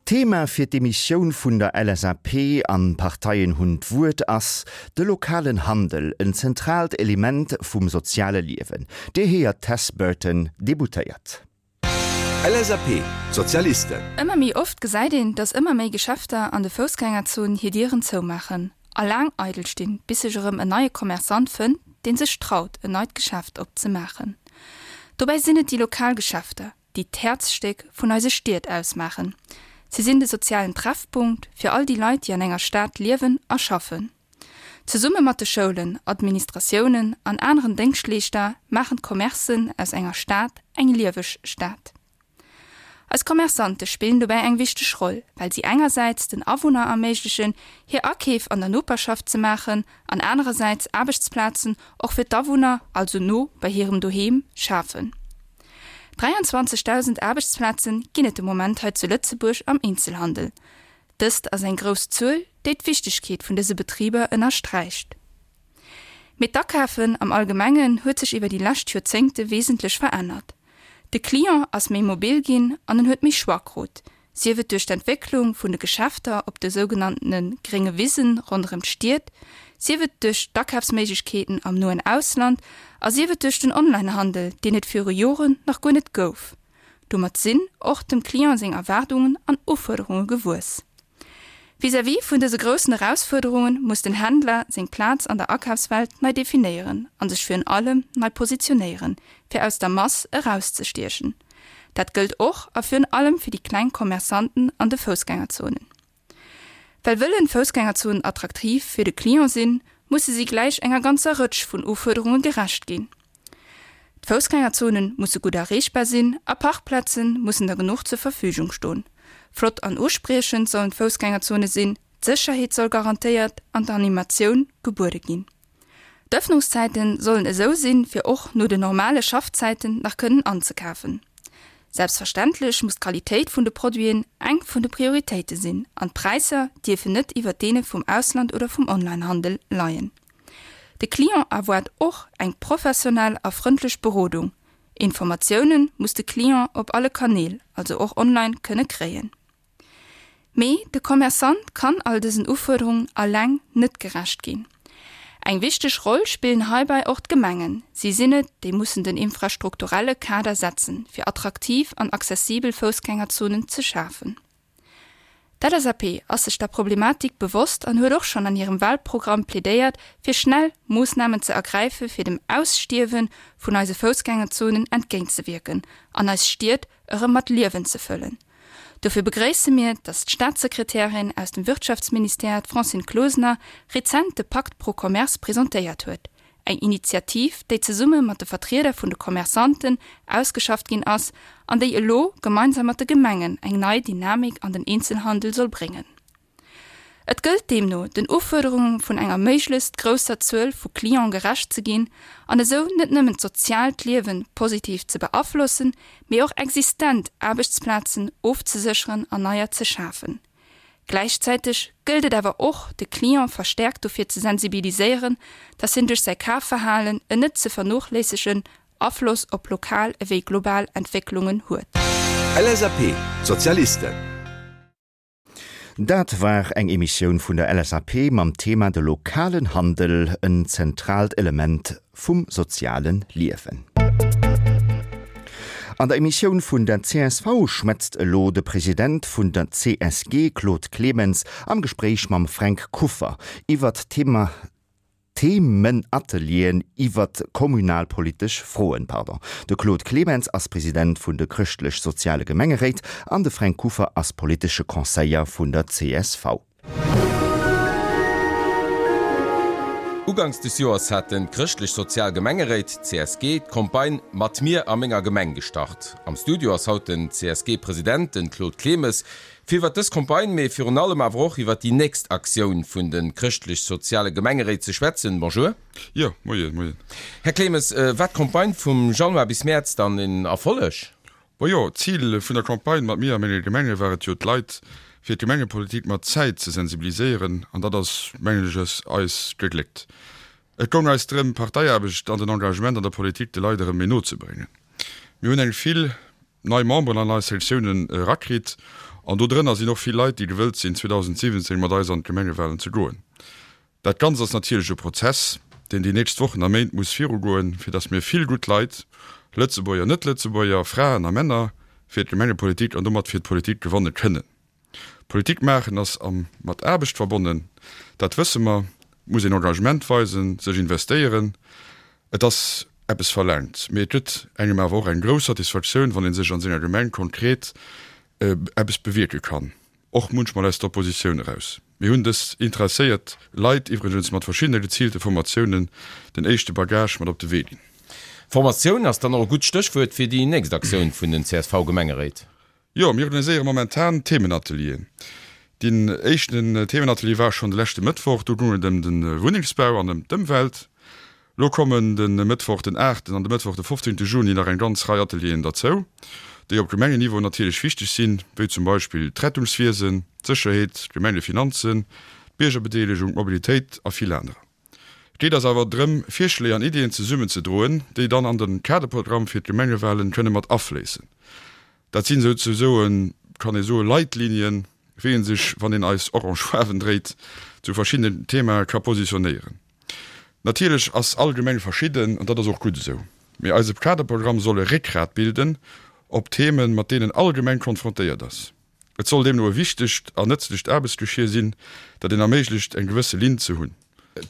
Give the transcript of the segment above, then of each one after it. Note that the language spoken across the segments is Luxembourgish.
D'Thema fir d'Emissioun vun der LSAP an Parteien hunn d'Wuert ass de lokalen Handel, en zentraalt Element vum soziale Liewen. Dir héiert d'Tess Burton, Deputéiert. LSAP, D'Sozialisten. Ëmmer méi oft gesäit een, dass ëmmer méi Geschäfter an de Foussgängerzonen hir Dieren zoumaachen a laang eidel stinn, bis sech erëm en neie Commerçant fënnt, dee sech traut, en neit Geschäft opzemaachen. Dobäi sinn et déi lokal Geschäfter, déi d'Häerzstéck vun eise Stied ausmaachen. Si sinn de sozialen Treffpunkt fir all déi Leit, déi an enger Stad liewen a schaffen. Zesumme mat de Schoulen, Administratiounen an aneren Déngschtleeschter maachen d'Commercen aus enger Stad eng lieweg Stad. Eis Commerçante spillen dobäi eng wichteg Roll, well si engersäits den Awunner erméiglechen, hir Akeef an der Noperschaft ze maachen an anerersäits Aarbechtsplazen och fir d'Awunner, also no bei hirem Doheem, schafen. 23.000 Aarbechtsplaze ginn et de Moment hei zu Lëtzebuerg am Eenzelhandel. Dëst ass eng grouss Zuel, déi d'Wichtegkeet vun dëse Betriber ënnersträicht. Mee d'Akafen am Allgemengen huet sech iwwer déi lescht Joerzéngte wesentlech verännert. De Client ass méi mobil ginn an en huet méi Choix krut, sief et duerch d'Entwécklung vun de Geschäfter op de sougenanntene grénge Wisen ronderëm d'Stied, sief et duerch d'Akafsméiglechkeeten am noen Ausland a sief et duerch den Onlinehandel, deen et viru Joren nach guer net gouf. Domat sinn och dem Client seng Erwaardungen an Ufuerderunge gewuess. Vis-à-vis vun dëse groussen Erausfuerderunge muss den Händler seng Plaz an der Akafswelt nei definéieren a sech virun allem nei positionéieren, fir aus der Mass erauszestiechen. Dat gëllt och a virun allem fir déi kleng Commerçanten an de Foussgängerzonen. Well wëllen Foussgängerzonen attraktiv fir de Client sinn, musse si gläich enger ganzer Rëtsch vun Ufuerderunge gerecht ginn. D'Foussgängerzone musse gutt erreechbar sinn a Parkplaze mussen der genuch zur Verfügung stoen. Flott an uspriechend sollen d'Foussgängerzone sinn, d'Sécherheet soll garantéiert an d'Animatioun gebuede ginn. D'Ëffnungszäite sollen esou sinn, fir och no den normale Schaffzäiten nach kënnen anzekafen. Selbstverständlech muss d'Qualitéit vun de Produiten eng vun de Prioritéite sinn an d'Präisser dierfen net iwwert deene vum Ausland oder vum Onlinehandel leien. De Client erwaart och eng professionell a frëndlech Berodung. Informatioune muss de Client op alle Kanäl, also och online, kënne kréien. Mee de Commerçant kann all dësen Ufuerderungen alleng net gerecht ginn. Eng wichteg Roll spillen heibäi och d'Gemengen. Si sinn et, déi mussen den infrastrukturelle Kader setzen, fir attraktiv an accessibel Foussgängerzonen ze schafen. D'LSAP ass sech der Problematik bewosst an huet och schonn an hirem Wahlprogramm plädéiert, fir schnell Moossnamen ze ergräife fir dem Ausstierwe vun eise Foussgängerzonen entgéintzewierken an eis Stied erëm mat Liewen ze fëllen. Dofir begréisse mir, datt d'Staatssekretärin aus dem Wirtschaftsministère, d'Francine Closener, rezent de Pakt pro Commerce presentéiert huet, eng Initiativ, déi zesumme mat de Vertrieder vun de Commerçanten ausgeschafft ginn ass an déi elo gemeinsam mat de Gemengen eng nei Dynamik an den Eenzelhandel soll bréngen. Et gëllt deemno, den Ufuerderunge vun enger méiglechst grousser Zuel vu Cliente gerecht ze ginn an esou net nëmmen d'soziaalt Liewe positiv ze beaflossen, mee och existent Aarbechtsplazen ofzesécheren an neier ze schafen. Gläichzäiteg gëllt et awer och, de Client verstäerkt dofir ze sensibiliséieren, dass hien duerch säi Kafverhalen en net ze vernochléissegen Afloss op lokal ewéi global Entwécklungen huet. LSAP, Sozialisten. Dat war eng Emissioun vun der LSAP mam Thema De lokalen Handel, en zentraalt Element vum soziale Liewen. An der Emissioun vun der csv schwätzt elo de President vun der CSG Claude Clemens am Gespréich mam Fränk Kuffer iwwert d'Thema Themenatelieren iwwert kommunalpolitesch Froen. Pardon. De Claude Clemens ass President vun de Chrëschtlech-Soziale Gemengeréit an de Fränk Kuffer ass politesche Conseiller vun der csv. Uganks des Joers haten d'Chrëschtlech-Sozial Gemengeréit, CSG, d'Campagne Mat mir a menger Gemeng gestart. Am Studio ass haut den CSG-President, den Claude Clemes, Fir iwwert dës Campagne, mee virun allem awer och iwwert déi nächst Aktioun vun de chrëschtlech-soziale Gemengeréit ze schwätzen. Bonjour. Jo, moien, moien. Här Clemes, war d'Campagne vum Januar bis Mäerz dann en Erfolleg? Majo, d'Zil vun der Campagne Mat mir a menge Gemenge war et jo, d'Leit fir d'Gemengepolitik mat Zäit ze sensibiliséieren an dat ass, mengen ech, eis gegléckt. Et goung eis drëm, d'Parteiaarbecht an den Engagement an der Politik de Leit erëm méi no ze bréngen. Mir hunn eng vill. nei Memberen an eis Sektiounen erakritt an do drënner sinn och vill Leit, déi gewëllt sinn 2017 mat eis an d'Gemengewahlen ze goen. Dat Ganzt ass natierlech e Prozess, deen déi nächst Wochen a Méint muss virugoen, fir datt mir vill gutt Leit, Lëtzebuerger, Net-Lëtzebuerger, Fraen a Männer, fir d'Gemengepolitik an domat fir d'Politik gewanne kënnen. Politik maachen ass am mat Aarbecht verbonnen, dat wësse mer. Et muss een Engagement weisen, sech investéieren, et ass eppes verlaangt. Mee et gëtt engem awer och eng grouss Satisfaktioun, wann ee sech an senger Gemeng konkret eppes bewierke kann, och munchmol aus der Oppositioun eraus. Mir hunn dës interesséiert Leit iwwregens mat verschiddene geziilte Formatiounen den éischte Bagage mat op de Wee ginn. Formatioun ass dann och e gutt Stéchwuert fir déi nächst Aktioun vun den CSV-Gemengeréit. Jo, mir organiséiere momentan Themenatelieren. Deen éischten Themenatelier war schonn de leschte Mëttwoch. Do goung et ëm de Wunnengsbau an ëm d'Ëmwelt. Lo kommen de Mëttwoch den aachten an de Mëttwoch de fofzéngte Juni nach eng ganz Rei Atelieren derzou, déi op Gemengenniveau natierlech wichteg sinn, wéi zum Beispill d'Rettungswiesen, d'Sécherheet, d'Gemengefinanzen, d'Biergerbedeelegung, d'Mobilitéit a vill anerer. Et geet eis awer drëm, Virschléi an Iddien zesummen ze droen, déi dann an de Kaderprogramm fir d'Gemengewahlen kënne mat afléissen. Dat sinn souzesoen, kann ee soen, Leitlinien, wéi ee sech, wann een eis orange Faarwen dréit, zu verschiddenen Themae ka positionéieren. Natierlech ass all Gemeng verschidden, an dat ass och gutt esou. Mee eise Kaderprogramm soll e Réckgrat bilden op Themen, mat deenen all Gemeng konfrontéiert ass. Et soll deemno e wichtegt an nëtzlecht Aarbechtsgeschier sinn, dat een erméiglecht, eng gewësse Linn ze hunn.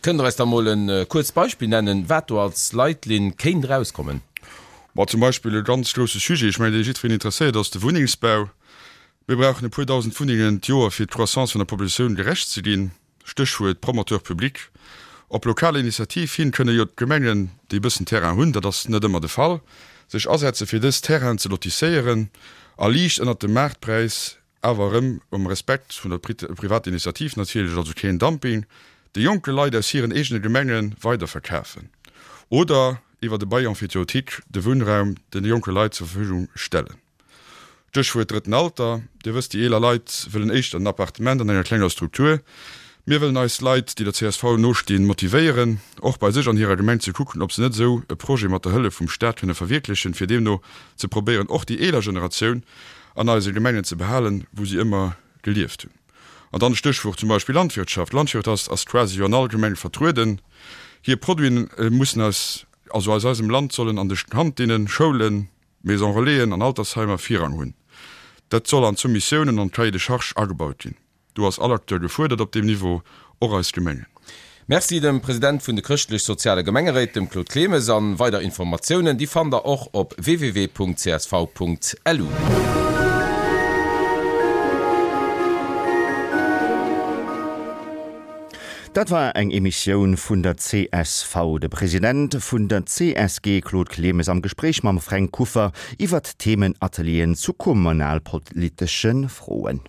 Kënnt Der eis da mol e kuerzt Beispill nennen, wat do als Leitlinn kéint erauskommen? Ma zum Beispill e ganz grousse Sujet, ech mengen, dee jiddwereen interesséiert, ass de Wunnengsbau. Mir brauchen e puer dausend Wunnengen d'Joer, fir d'Croissance vun der Populatioun gerecht ze ginn. Stéchwuert Promoteur public. Op lokal Initiativ hin kënne jo d'Gemengen, déi e bëssen Terrain hunn, dat ass net ëmmer de Fall, sech asetze fir dës Terrainen ze lotisséieren a liicht ënnert dem Maartpräis, awer erëm um Respekt vun der Privatinitiativ natierlech, also keen Dumping, de jonke Leit aus hiren eegene Gemenge weiderverkafen oder iwwert e Bail emphytéotique de Wunnraum de jonke Leit zur Verfügung stellen. Stéchwuert drëtten Alter. Dir wësst, déi eeler Leit wëllen éischter en Appartement an enger klenger Struktur. Mir wëllen eis Leit, déi der csv nostinn, motivéieren, och bei sech an hirer Gemeng ze kucken, ob se net esou e Projet mat der Hëllef vum Staat kënne verwierklechen, fir deemno ze probéieren, och déi eeler Generatioun an eise Gemengen ze behalen, wou si ëmmer gelieft hunn. An dann Stéchwuert zum Beispill Landwirtschaft. Landwirtschaft ass quasi jo an all Gemeng vertrueden. Hir Produiten mussen aus, also aus eisem Land sollen an de Kantinnen, Schoulen, Maison Relaisen an Altersheimer Virrang hunn. Dat soll an d'Soumissiounen an d'Cahier de charges agebaut ginn. Do ass all Acteur gefuerdert op deem Niveau, och eis Gemengen. Merci dem President vun de Chrëschtlech-Soziale Gemengeréit, dem Claude Clemes. An weider Informatiounen, déi fannt der och op www.csv.lu. Dat war eng Emissioun vun der csv. De President vun der csg Claude Clemes am Gespréich mam Fränk Kuffer iwwert Themenatelieren zu kommunalpolitesche Froen.